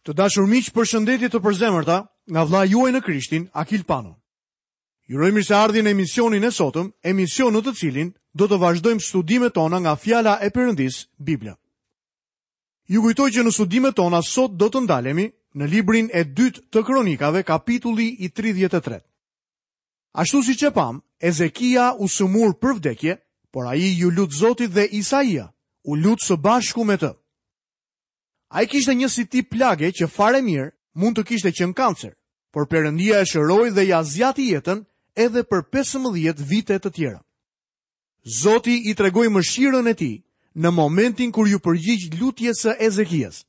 Të dashur miq, përshëndetje të përzemërta nga vëllai juaj në Krishtin, Akil Pano. Ju uroj mirëseardhje në emisionin e sotëm, emision në të cilin do të vazhdojmë studimet tona nga fjala e Perëndisë, Bibla. Ju kujtoj që në studimet tona sot do të ndalemi në librin e dytë të Kronikave, kapitulli i 33. Ashtu siç e pamë, Ezekia u sëmur për vdekje, por ai iu lut Zotit dhe Isaia u lut së bashku me të. Ai kishte një si tip plage që fare mirë mund të kishte qenë kancer, por Perëndia e shëroi dhe ia zgjati jetën edhe për 15 vite të tjera. Zoti i tregoi mëshirën e tij në momentin kur iu përgjigj lutjes së Ezekias.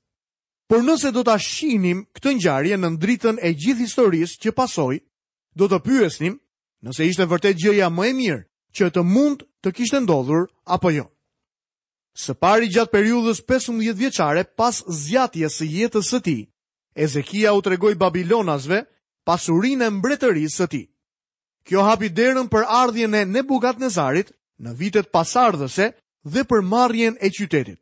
Por nëse do ta shihnim këtë ngjarje nën dritën e gjithë historisë që pasoi, do të pyesnim nëse ishte vërtet gjëja më e mirë që të mund të kishte ndodhur apo jo. Së pari gjatë periudhës 15 vjeçare pas zgjatjes së jetës së tij, Ezekia u tregoi babilonasve pasurinë e mbretërisë së tij. Kjo hapi derën për ardhjen e Nebukadnezarit në vitet pasardhëse dhe për marrjen e qytetit.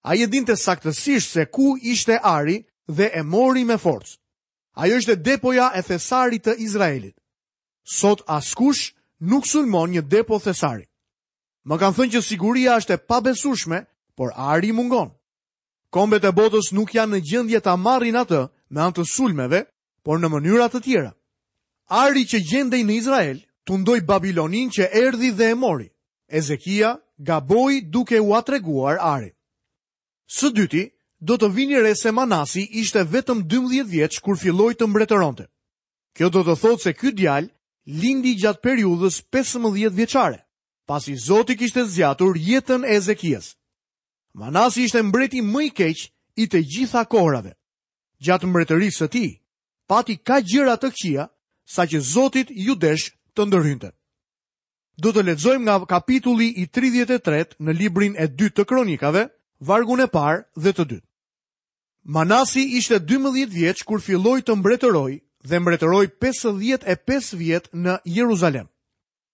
Ai e dinte saktësisht se ku ishte ari dhe e mori me forcë. Ajo ishte depoja e thesarit të Izraelit. Sot askush nuk sulmon një depo thesari. Më kanë thënë që siguria është e pabesueshme, por ari mungon. Kombet e botës nuk janë në gjendje ta marrin atë me anë të sulmeve, por në mënyra të tjera. Ari që gjendej në Izrael tundoi Babiloninë që erdhi dhe e mori. Ezekia gaboi duke ua treguar arin. Së dyti, do të vini re se Manasi ishte vetëm 12 vjeç kur filloi të mbretëronte. Kjo do të thotë se ky djalë lindi gjatë periudhës 15 vjeçare, pasi Zoti kishte zgjatur jetën e Ezekias. Manasi ishte mbreti më i keq i të gjitha kohërave. Gjatë mbretërisë së tij, pati kaq gjëra të këqija, saqë Zotit iu desh të ndërhynte. Do të lexojmë nga kapitulli i 33 në librin e dytë të Kronikave, vargun e parë dhe të dytë. Manasi ishte 12 vjeç kur filloi të mbretërojë dhe mbretëroi 55 vjet në Jeruzalem.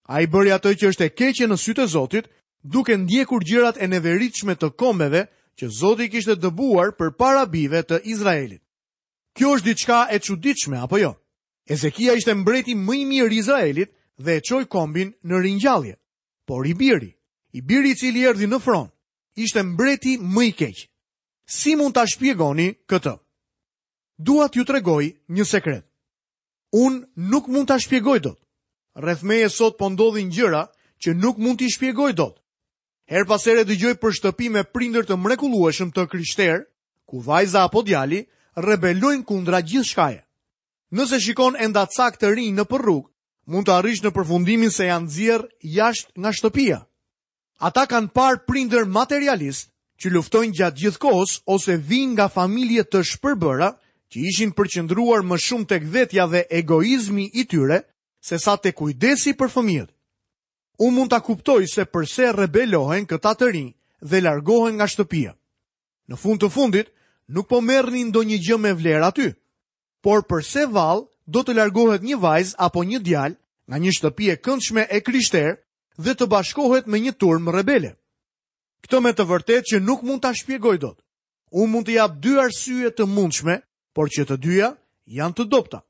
Ai bëri atë që është e keqe në sytë e Zotit, duke ndjekur gjërat e neveritshme të kombeve që Zoti i kishte dëbuar përpara bijve të Izraelit. Kjo është diçka e çuditshme apo jo? Ezekia ishte mbreti më i mirë i Izraelit dhe e çoi kombin në ringjallje. Por i biri, i biri i cili erdhi në fron, ishte mbreti më i keq. Si mund ta shpjegoni këtë? Dua t'ju tregoj një sekret. Unë nuk mund ta shpjegoj dot. Rreth meje sot po ndodhin gjëra që nuk mund t'i shpjegoj dot. Herë pas here dëgjoj për shtëpi me prindër të mrekullueshëm të krishterë, ku vajza apo djali rebelojnë kundra gjithçkaje. Nëse shikon endacakë të rinj nëpër rrugë, mund të arrish në përfundimin se janë nxjerrë jashtë nga shtëpia. Ata kanë parë prindër materialistë që luftojnë gjatë gjithë kohës ose vijnë nga familje të shpërbëra që ishin përqendruar më shumë tek vetja dhe egoizmi i tyre sesa te kujdesi për fëmijët. Unë mund ta kuptoj se përse rebelohen këta të rinj dhe largohen nga shtëpia. Në fund të fundit, nuk po merrnin ndonjë gjë me vlerë aty. Por përse vallë do të largohet një vajzë apo një djalë nga një shtëpi e këndshme e krishterë dhe të bashkohet me një turmë rebele. Këtë me të vërtetë që nuk mund ta shpjegoj dot. Unë mund të jap dy arsye të mundshme, por që të dyja janë të dobëta.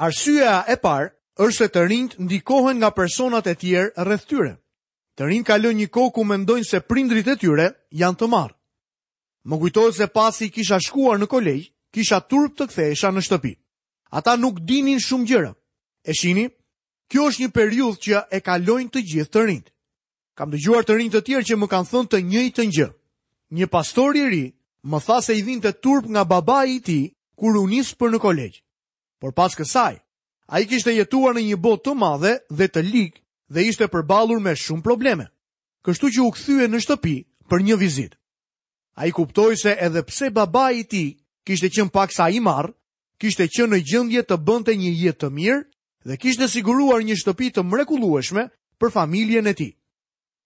Arsyeja e parë është se të rinjtë ndikohen nga personat e tjerë rreth tyre. Të rinjtë kalojnë një kohë ku mendojnë se prindërit e tyre janë të marrë. Më kujtohet se pasi kisha shkuar në kolegj, kisha turp të kthehesha në shtëpi. Ata nuk dinin shumë gjëra. E shihni? Kjo është një periudhë që e kalojnë të gjithë të rinjtë. Kam dëgjuar të rinj të tjerë që më kanë thënë të njëjtën gjë. Një pastor i ri më tha se i vinte turp nga babai i tij kur u nis për në kolegj. Por pas kësaj, ai kishte jetuar në një botë të madhe dhe të ligë dhe ishte përballur me shumë probleme. Kështu që u kthye në shtëpi për një vizitë. Ai kuptoi se edhe pse babai i tij kishte qenë paksa i marrë, kishte qenë në gjendje të bënte një jetë të mirë dhe kishte siguruar një shtëpi të mrekullueshme për familjen e tij.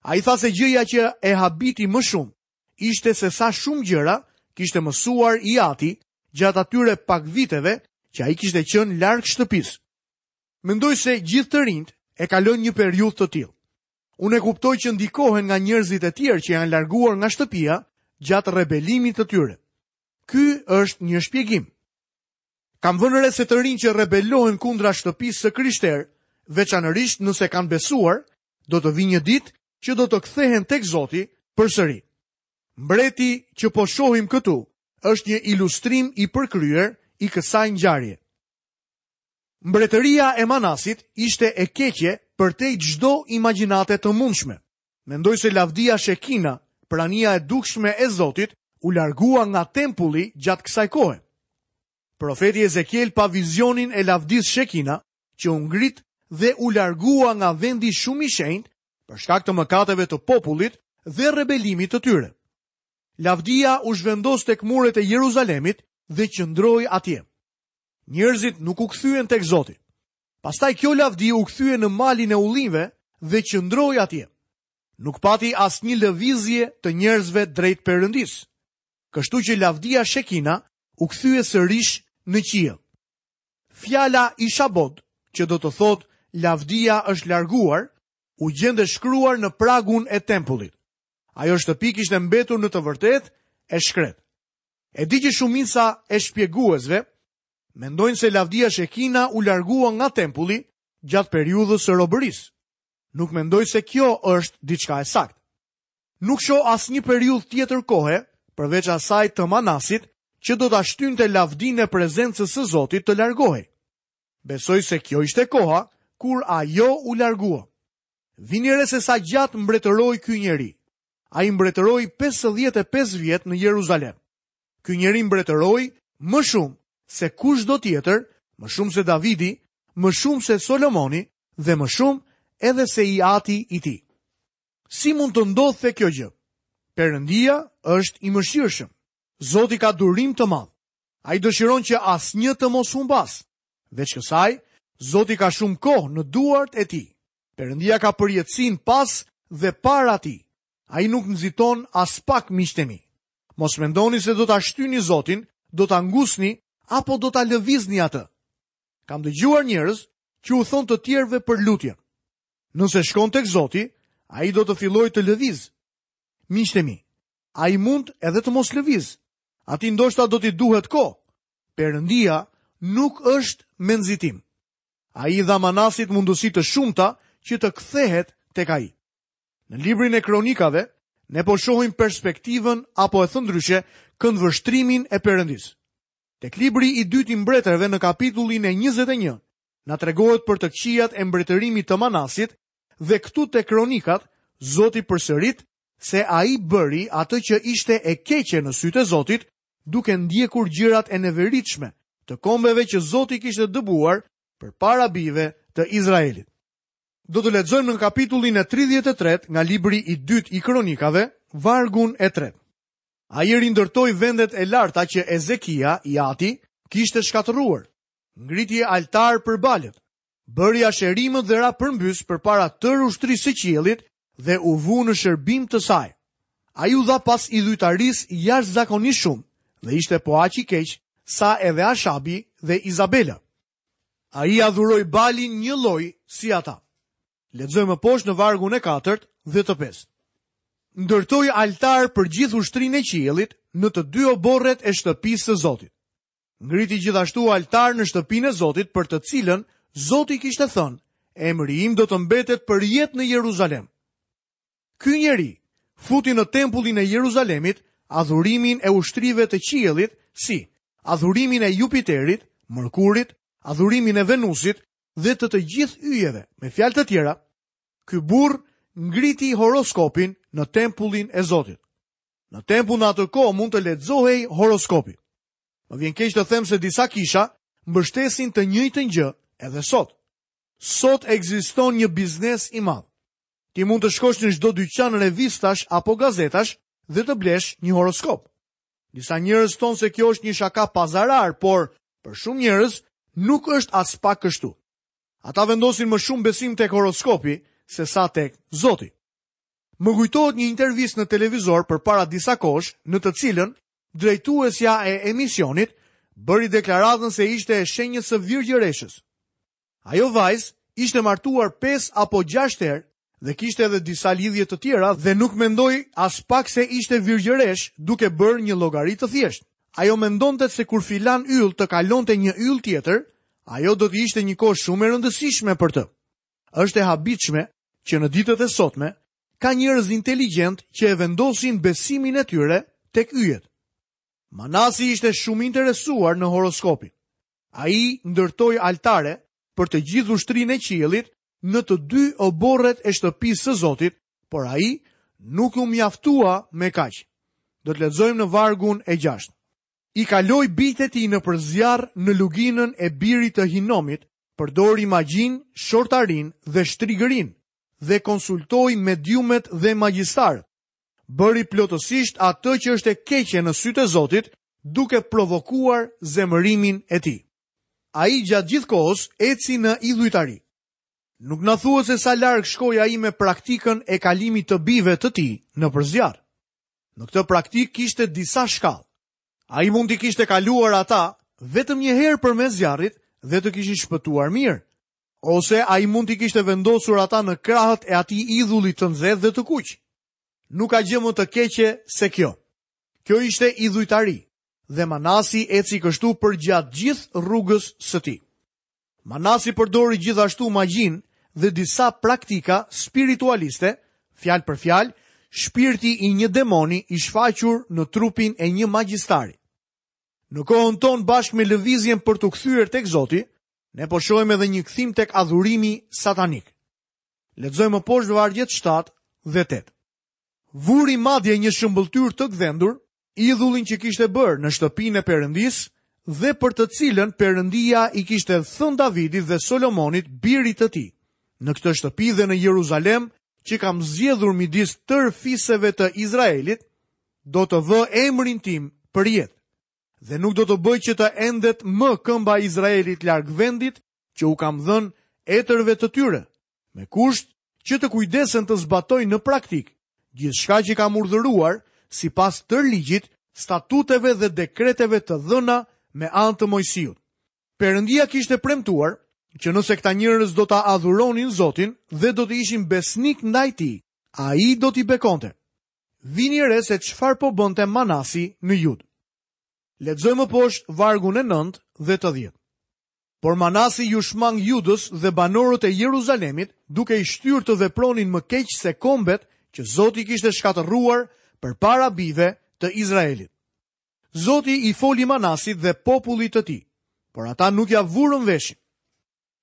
Ai tha se gjëja që e habiti më shumë ishte se sa shumë gjëra kishte mësuar i ati gjatë atyre pak viteve që ai kishte qenë larg shtëpisë. Mendoj se gjithë të rinjtë e kalojnë një periudhë të tillë. Unë e kuptoj që ndikohen nga njerëzit e tjerë që janë larguar nga shtëpia gjatë rebelimit të tyre. Ky është një shpjegim. Kam vënë re se të rinj që rebelohen kundra shtëpisë së krishterë, veçanërisht nëse kanë besuar, do të vijë një ditë që do të kthehen tek Zoti përsëri. Mbreti që po shohim këtu është një ilustrim i përkryer i kësaj ngjarje. Mbretëria e Manasit ishte e keqe përtej çdo imagjinate të mundshme. Mendoj se lavdia Shekina, prania e dukshme e Zotit, u largua nga tempulli gjatë kësaj kohe. Profeti Ezekiel pa vizionin e lavdisë Shekina, që u ngrit dhe u largua nga vendi shumë i shenjtë për shkak të mëkateve të popullit dhe rebelimit të tyre. Lavdia u zhvendos tek muret e Jeruzalemit dhe qëndroi atje. Njerëzit nuk u kthyen tek Zoti. Pastaj kjo lavdi u kthye në malin e ullinjve dhe qëndroi atje. Nuk pati asnjë lëvizje të njerëzve drejt Perëndisë. Kështu që lavdia Shekina u kthye sërish në qiell. Fjala Ishabod, që do të thotë lavdia është larguar, u gjend e shkruar në pragun e tempullit. Ajo shtëpi kishte mbetur në të vërtetë e shkretë. E di që shumica e shpjeguesve mendojnë se lavdia Shekina u largua nga tempulli gjatë periudhës së robërisë. Nuk mendoj se kjo është diçka e saktë. Nuk shoh asnjë periudhë tjetër kohe, përveç asaj të Manasit, që do ta shtynte lavdinë e prezencës së Zotit të largohej. Besoj se kjo ishte koha kur ajo u largua. Vini re se sa gjatë mbretëroi ky njeri. Ai mbretëroi 55 vjet në Jeruzalem. Ky njeri mbretëroi më shumë se kushdo tjetër, më shumë se Davidi, më shumë se Solomoni dhe më shumë edhe se i ati i tij. Si mund të ndodhte kjo gjë? Perëndia është i mëshirshëm. Zoti ka durim të madh. Ai dëshiron që asnjë të mos humbasë. Veç kësaj, Zoti ka shumë kohë në duart e tij. Perëndia ka përjetësinë pas dhe para tij. Ai nuk nxiton aspak miqtë e mi. Mos mendoni se do ta shtyni Zotin, do ta ngusni apo do ta lëvizni atë. Kam dëgjuar njerëz që u thonë të tjerëve për lutjen. Nëse shkon tek Zoti, ai do të fillojë të lëvizë. Miqtë e mi, ai mund edhe të mos lëvizë. Atij ndoshta do t'i duhet kohë. Perëndia nuk është me nxitim. Ai i dha Manasit mundësi të shumta që të kthehet tek ai. Në librin e Kronikave, ne po shohim perspektivën apo e thënë ndryshe, këndvështrimin e Perëndisë. Tek libri i dytë i mbretërve në kapitullin e 21, na tregohet për të këqijat e mbretërimit të Manasit dhe këtu te Kronikat, Zoti përsërit se ai bëri atë që ishte e keqe në sytë e Zotit, duke ndjekur gjërat e neveritshme të kombeve që Zoti kishte dëbuar përpara bijve të Izraelit. Do të lexojmë në kapitullin e 33 nga libri i dytë i Kronikave, vargun e tretë. Ai rindërtoi vendet e larta që Ezekia, i ati, kishte shkatërruar. Ngriti altarë për Balët, bëri asherimët dhe ra përmbys përpara tërë ushtrisë së qiellit dhe u vu në shërbim të saj. Ai u dha pas idhujtarisë jashtëzakonisht shumë dhe ishte po aq i keq sa edhe Ashabi dhe Izabela. Ai adhuroi Balin njëlloj si ata. Lexojmë më poshtë në vargun e katërt dhe të pestë. Ndërtoi altarë për gjithë ushtrinë e qiellit në të dy oborret e shtëpisë së Zotit. Ngriti gjithashtu altar në shtëpinë e Zotit për të cilën Zoti kishte thënë, emri im do të mbetet përjetë në Jeruzalem. Ky njeri futi në tempullin e Jeruzalemit adhurimin e ushtrive të qiellit si adhurimin e Jupiterit, Mërkurit, adhurimin e Venusit dhe të të gjithë yjeve. Me fjalë të tjera, ky burrë ngriti horoskopin në tempullin e Zotit. Në tempull në atë kohë mund të lexohej horoskopi. Më vjen keq të them se disa kisha mbështesin të njëjtën gjë edhe sot. Sot ekziston një biznes i madh. Ti mund të shkosh në çdo dyqan revistash apo gazetash dhe të blesh një horoskop. Disa njerëz thonë se kjo është një shaka pa zarar, por për shumë njerëz nuk është aspak kështu. Ata vendosin më shumë besim tek horoskopi sesa tek Zoti. Më kujtohet një intervistë në televizor përpara disa kohësh, në të cilën drejtuesja e emisionit bëri deklaratën se ishte e shenjës së virgjëreshës. Ajo vajzë ishte martuar 5 apo 6 herë dhe kishte edhe disa lidhje të tjera dhe nuk mendoj aspak se ishte virgjëreshë duke bërë një llogari të thjeshtë. Ajo mendonte se kur filan yll të kalonte një yll tjetër, ajo do të ishte një kohë shumë e rëndësishme për të. Është e habitshme që në ditët e sotme ka njerëz inteligjentë që e vendosin besimin e tyre tek yjet. Manasi ishte shumë i interesuar në horoskopin. Ai ndërtoi altare për të gjithë ushtrinë e qiellit në të dy oborret e shtëpisë së Zotit, por ai nuk u mjaftua me kaq. Do të lexojmë në vargun e 6. I kaloi bijtë e tij nëpër zjarr në luginën e birit të Hinomit, përdori magjinë, shortarinë dhe shtrigërinë dhe konsultoi mediumet dhe magjistarët. Bëri plotësisht atë që është e keqe në sytë e Zotit, duke provokuar zemërimin e tij. Ai gjatë gjithë kohës eci në idhujtari. Nuk na thuhet se sa larg shkoi ai me praktikën e kalimit të bijve të tij nëpër zjarr. Në këtë praktikë kishte disa shkallë. Ai mund t'i kishte kaluar ata vetëm një herë përmes zjarrit dhe të kishin shpëtuar mirë. Ose ai mund t'i kishte vendosur ata në krahët e atij idhulli të nxehtë dhe të kuq. Nuk ka gjë më të keqe se kjo. Kjo ishte idhujtari dhe Manasi eci kështu përgjatë gjithë rrugës së tij. Manasi përdori gjithashtu magjinë dhe disa praktika spiritualiste, fjalë për fjalë, shpirti i një demoni i shfaqur në trupin e një magjistari. Në kohën tonë bashkë me lëvizjen për t'u kthyer tek Zoti, ne po shohim edhe një kthim tek adhurimi satanik. Lexojmë më poshtë vargjet 7 dhe 8. Vuri madje një shëmbëlltyrë të gdhendur, idhullin që kishte bërë në shtëpinë e Perëndisë dhe për të cilën Perëndia i kishte thënë Davidit dhe Solomonit, birit të tij, në këtë shtëpi dhe në Jeruzalem që kam zgjedhur midis tërë fiseve të Izraelit, do të vë emrin tim përjetë. Dhe nuk do të bëj që të endet më këmba e Izraelit larg vendit që u kam dhënë etërve të tyre, me kusht që të kujdesen të zbatojnë në praktikë gjithçka që kam urdhëruar sipas tërë ligjit, statuteve dhe dekreteve të dhëna me anë të Moisiut. Perëndia kishte premtuar që nëse këta njerëz do ta adhuronin Zotin dhe do të ishin besnikë ndaj tij, ai do t'i bekonte. Vini re se çfarë po bënte Manasi në Judë. Lexojmë më poshtë vargun e 9 dhe të 10. Por Manasi iu shmang Judës dhe banorët e Jeruzalemit, duke i shtyrë të vepronin më keq se kombet që Zoti kishte shkatërruar përpara bijve të Izraelit. Zoti i foli Manasit dhe popullit të tij, por ata nuk ia vurën veshin.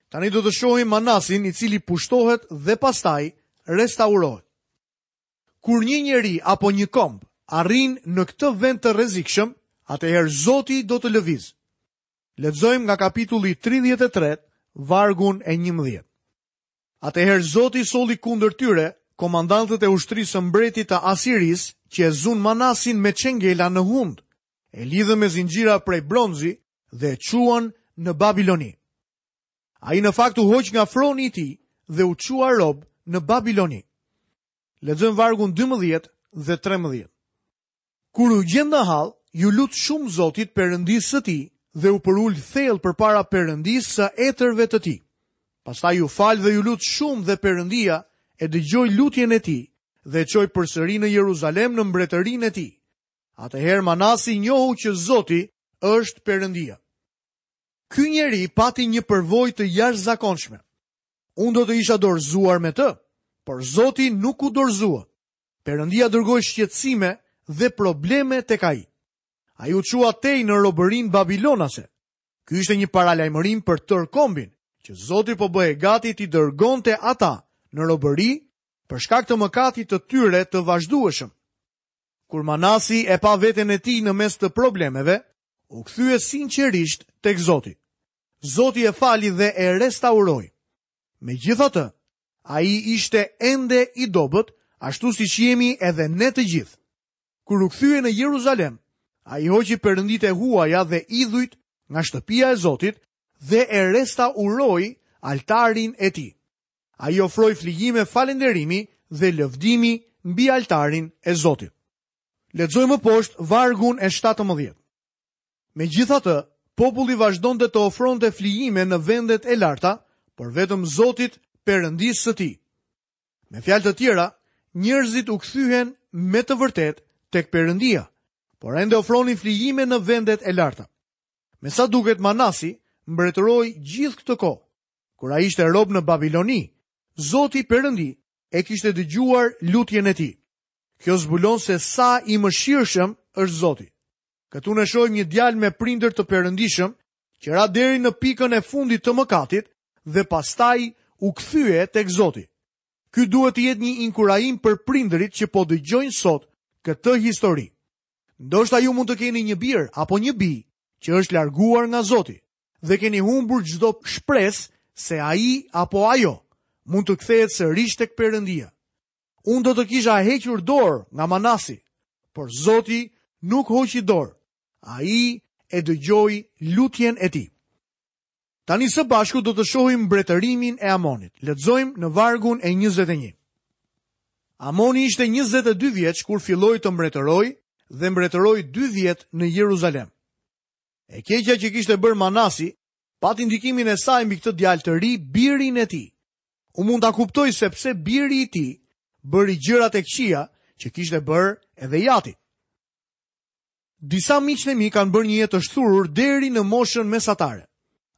Tani do të shohim Manasin i cili pushtohet dhe pastaj restaurohet. Kur një njeri apo një komb arrin në këtë vend të rrezikshëm, atëherë Zoti do të lëvizë. Lexojmë nga kapitulli 33, vargun e 11. Atëherë Zoti solli kundër tyre komandantët e ushtrisë së mbretit të Asirisë që e zunë Manasin me çengela në hundë, e lidhën me zinxhira prej bronzi dhe e çuan në Babiloni. Ai në fakt u hoq nga froni i tij dhe u çua rob në Babiloni. Lexojmë vargun 12 dhe 13. Kur u gjend në hall, iu lut shumë Zotit Perëndisë së tij dhe u përul thellë përpara Perëndisë së etërve të tij. Pastaj u fal dhe iu lut shumë dhe Perëndia e dëgjoi lutjen e tij dhe e çoi përsëri në Jeruzalem në mbretërinë e tij. Atëherë Manasi njohu që Zoti është Perëndia. Ky njeri pati një përvojë të jashtëzakonshme. Unë do të isha dorëzuar me të, por Zoti nuk u dorëzua. Perëndia dërgoi shqetësime dhe probleme tek ai. Ai u çua tej në robërinë babilonase. Ky ishte një paralajmërim për tërë kombin, që Zoti po bëhej gati t'i dërgonte ata në robëri për shkak të mëkatit të tyre të vazhdueshëm. Kur Manasi e pa veten e tij në mes të problemeve, u kthye sinqerisht tek Zoti. Zoti e fali dhe e restauroi. Megjithatë, Ai ishte ende i dobët, ashtu siç jemi edhe ne të gjithë. Kur u kthye në Jeruzalem, ai hoqi perënditë e huaja dhe idhujt nga shtëpia e Zotit dhe e restauroi altarin e tij. Ai ofroi flijime falënderimi dhe lëvdimi mbi altarin e Zotit. Lexojmë më poshtë vargun e 17. Megjithatë, populli vazhdonte të ofronte flijime në vendet e larta, por vetëm Zotit, Perëndisë së tij. Me fjalë të tjera, njerëzit u kthyen me të vërtetë tek Perëndia. Por ende ofronin flijime në vendet e larta. Me sa duket Manasi mbretëroi gjithë këtë kohë. Kur ai ishte rob në Babiloni, Zoti Perëndi e kishte dëgjuar lutjen e tij. Kjo zbulon se sa i mëshirshëm është Zoti. Këtu ne shohim një djalë me prindër të perëndishëm që ra deri në pikën e fundit të mëkatit dhe pastaj u kthye tek Zoti. Ky duhet të jetë një inkurajim për prindërit që po dëgjojnë sot këtë histori. Ndoshta ju mund të keni një bir apo një bijë që është larguar nga Zoti dhe keni humbur çdo shpresë se ai apo ajo mund të kthehet sërish tek Perëndia. Unë do të kisha hequr dorë nga Manasi, por Zoti nuk hoqi dorë. Ai e dëgjoi lutjen e tij. Tani së bashku do të shohim mbretërimin e Amonit. Lexojmë në vargun e 21. Amoni ishte 22 vjeç kur filloi të mbretërojë dhe mbretëroi 2 vjet në Jeruzalem. E keqja që kishte bërë Manasi pati ndikimin e saj mbi këtë djalë të ri, birin e tij. Unë mund ta kuptoj se pse biri i tij bëri gjërat e këqija që kishte bërë edhe i ati. Disa miqtë e mi kanë bërë një jetë të shthurur deri në moshën mesatare.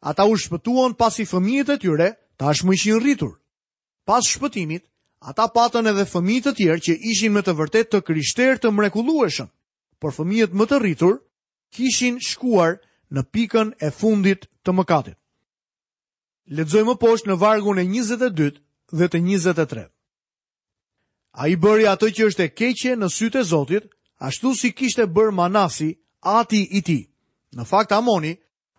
Ata u shpëtuan pasi fëmijët e tyre tashmë ishin rritur. Pas shpëtimit, ata patën edhe fëmijë të tjerë që ishin me të vërtetë të krishterë të mrekullueshëm, por fëmijët më të rritur kishin shkuar në pikën e fundit të mëkatit. Lexojmë më poshtë në vargun e 22 dhe të 23. Ai bëri atë që është e keqe në sytë e Zotit, ashtu si kishte bërë Manasi, ati i tij. Në fakt Amoni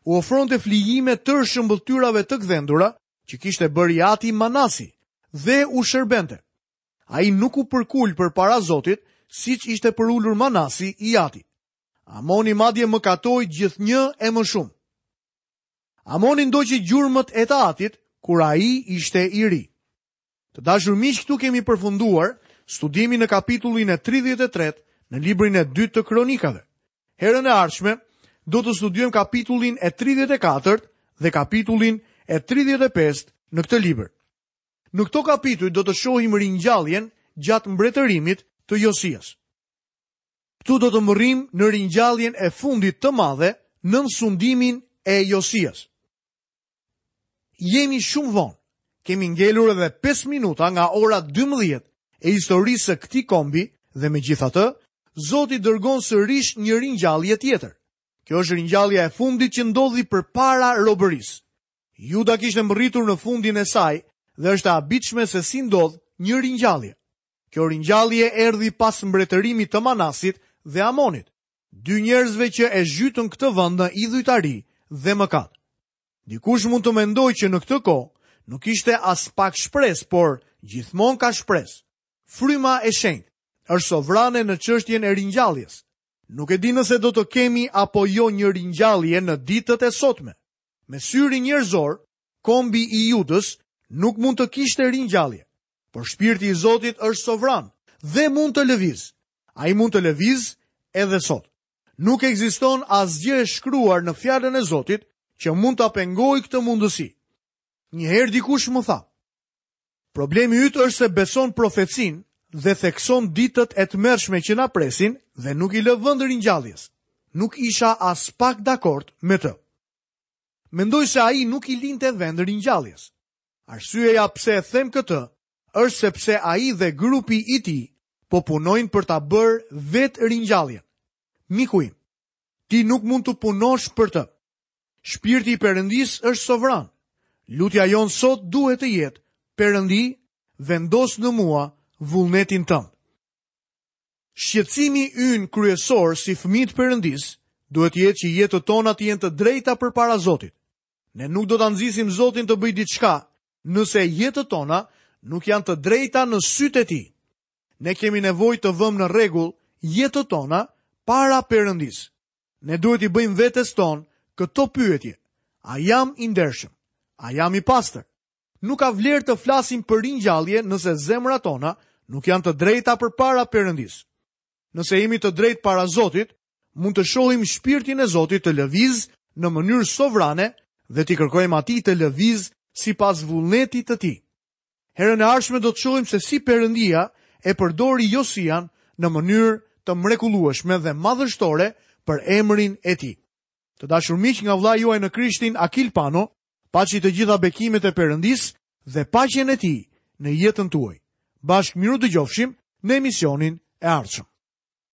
u ofronte flijime tërë shëmbëlltyrave të gdhendura që kishte bërë i ati Manasi dhe u shërbente. Ai nuk u përkul përpara Zotit, siç ishte përulur Manasi i ati. Amoni madje mëkatoi gjithnjë e më shumë. Amoni ndoqi gjurmët e të atit kur ai ishte i ri. Të dashur miq, këtu kemi përfunduar studimin në kapitullin e 33 në librin e dytë të Kronikave. Herën e ardhshme do të studiojmë kapitullin e 34 dhe kapitullin e 35 në këtë libër. Në këto kapituj do të shohim ringjalljen gjatë mbretërimit të Josias. Këtu do të mbërrijmë në ringjalljen e fundit të madhe nën sundimin e Josias. Jemi shumë vonë. Kemi ngelur edhe 5 minuta nga ora 12 e historisë së këtij kombi dhe megjithatë, Zoti dërgon sërish një ringjallje tjetër. Kjo është ringjallja e fundit që ndodhi përpara robërisë. Juda kishte mbërritur në fundin e saj dhe është e habitshme se si ndodh një ringjallje. Kjo ringjallje erdhi pas mbretërimit të Manasit dhe Amonit, dy njerëzve që e zhytën këtë vend në idhujtari dhe mëkat. Dikush mund të mendojë që në këtë kohë nuk ishte aspak shpresë, por gjithmonë ka shpresë. Fryma e Shenjtë është sovrane në çështjen e ringjalljes. Nuk e di nëse do të kemi apo jo një ringjallje në ditët e sotme. Me syrin njerëzor, kombi i Judës nuk mund të kishte ringjallje. Por shpirti i Zotit është sovran dhe mund të lëvizë. Ai mund të lëvizë edhe sot. Nuk ekziston asgjë e shkruar në fjalën e Zotit që mund ta pengojë këtë mundësi. Një herë dikush më tha: Problemi yt është se beson profecinë dhe thekson ditët e tmerrshme që na presin dhe nuk i lë vend ringjalljes. Nuk isha aspak dakord me të. Mendoj se ai nuk i linte vend ringjalljes. Arsyeja pse e them këtë është sepse ai dhe grupi i tij po punojnë për ta bërë vetë ringjalljen. Miku im, ti nuk mund të punosh për të. Shpirti i Perëndisë është sovran. Lutja jonë sot duhet të jetë, Perëndi, vendos në mua vullnetin tënd. Shqetësimi ynë kryesor si fëmijë të Perëndisë duhet të jetë që jetët tona të jenë të drejta përpara Zotit. Ne nuk do ta nxisim Zotin të bëjë diçka nëse jetët tona nuk janë të drejta në sytë e tij. Ne kemi nevojë të vëmë në rregull jetët tona para Perëndisë. Ne duhet t'i bëjmë vetes tonë këto pyetje. A jam i ndershëm? A jam i pastër? Nuk ka vlerë të flasim për ringjallje nëse zemrat tona nuk janë të drejta përpara Perëndisë. Nëse jemi të drejtë para Zotit, mund të shohim shpirtin e Zotit të lëvizë në mënyrë sovrane dhe t'i kërkojmë atij të lëvizë sipas vullnetit të tij. Herën e ardhshme do të shohim se si Perëndia e përdori Josian në mënyrë të. të mrekullueshme dhe madhështore për emrin e tij. Të dashur miq nga vëllai juaj në Krishtin Akil Pano, paçi të gjitha bekimet e Perëndisë dhe paqen e tij në jetën tuaj. Bashkë mirudëgjofshim në emisionin e ardhshëm.